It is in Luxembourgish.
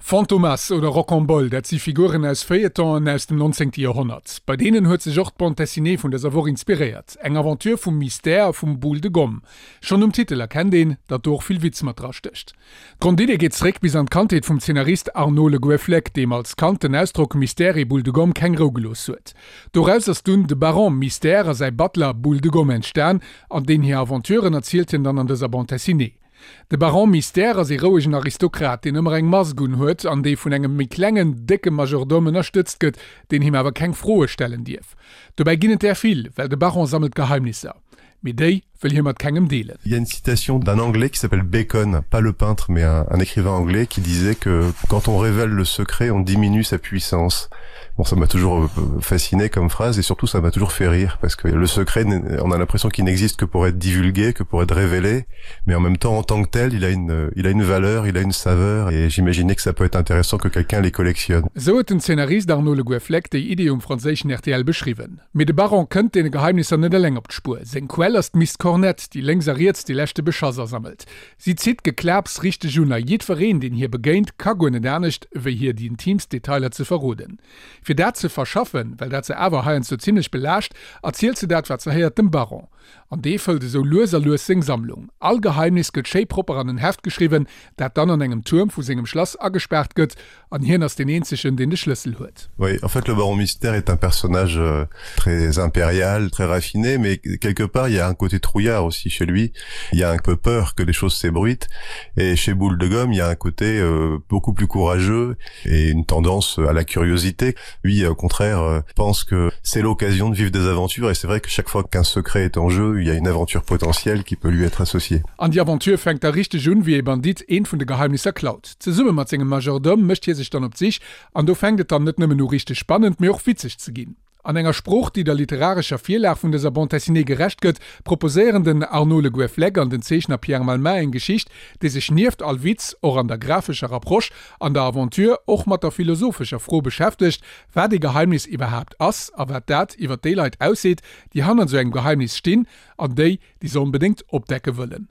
Fantomas oder Rocambole, dat si Figuren aus Feuilletonen aus dem 19. Joerhonnert. Bei deenen huet sech och d'Bande dessinée vun dëser Woch inspiréiert. Eng Aventure vum Mystère a vum Boule de Gomme. Schonn um Titel erkennt een, datt do och vill Witz mat drastécht. D'Grondidee geet zeréck bis an d'Kandheet vum Zeenarist Arnaud Le Gouëfflec, deem als Kand den Ausdrock Mystère et Boule de Gomme keng Rou gelooss huet. Doraus ass dunn de Baron Mystère a säi Butler Boule de Gomme entstan, an deen hir Aventuren erzielt hien dann an dëser Bande dessinée. De Baron Mystère ass ee rouegen Aristokrat, deen ëmmer eng Mask un huet an dee vun engem méi klengen, décke Majordome ënnerstëtzt gëtt, deen him awer keng Froe stellen dierf. Dobäi ginn et där vill, well de Baron sammelt Geheimnisser. Mee déi wëll hie mat kengem deelen. Il y a une citation d'un anglais qui s'appelle Bacon, pas le peintre mais un, un écrivain anglais qui disait que quand on révèle le secret, on diminue sa puissance. Bon, ça m'a toujours euh, fasciné comme phrase et surtout ça m'a toujours fait rire parce que le secret, on a l'impression qu'il n'existe que pour être divulgué, que pour être révélé, mais en même temps en tant que tel, il a une, il a une valeur, il a une saveur et j'imaginais que ça peut être intéressant que quelqu'un les collectionne. Esou huet den Zeenarist Arnaud Le Gouëfflec déi Idee um franséischen rtl beschriwwen. Mee de Baron kënnt deene Geheimnisser net eleng op d'Spuer. Seng Quell ass d'Miss Cornette, déi lénks a riets dee leschte Beschass asammelt. Si zitt d'Geklaps richteg un a jiddwereen, deen hir begéint, ka guer net anescht, wéi hir déi intiimst Detailer ze verroden. Fir dat ze verschaffen, well dat se awer heiansdo zimmlech belaascht, erzielt se dat, wat se héiert, dem Baron. An dee fëllt esou lues a lues seng Sammlung. All Geheimnis gëtt schéi propper an en Heft geschriwwen, dat dann an engem Tuerm vu sengem Schlass agespaart gëtt, an hien ass deen eenzegen, deen de Schlëssel huet. Oui, en fait le baron mystère est un personnage euh, très impérial, très raffiné, mais quelque part il y a un côté trouillard aussi chez lui. Il y a un peu peur que les choses s'ébruitent et chez Boule de gomme, il y a un côté euh, beaucoup plus courageux et une tendance à la curiosité. Lui, au contraire, euh, pense que c'est l'occasion de vivre des aventures et c'est vrai que chaque fois qu'un secret est en jeu, il y a une aventure potentielle qui peut lui être associée. An déi Aventure fänkt da richteg un, wéi ee Bandit eent vun de Geheimnisser klaut. Zesumme mat sengem Majordome mécht hie sech dann op d'Sich, an do fänkt et dann net nëmmen u richteg spannend, mee och witzeg ze ginn. An enger Sprooch, déi der literarescher Virlag vun dëser Bande dessinée gerecht gëtt, proposéieren den Arnaud Le Gouëfflec an den Zeechner Pierre Malmain eng Geschicht, déi sech nieft all Witz och an der graphescher Approche an der Aventure och mat der philosophescher Fro beschäftegt, wat ee Geheimnis iwwerhaapt ass a wat dat iwwer déi Leit ausseet, déi hannert esou engem Geheimnis stinn an déi, déi se onbedéngt opdecke wëllen.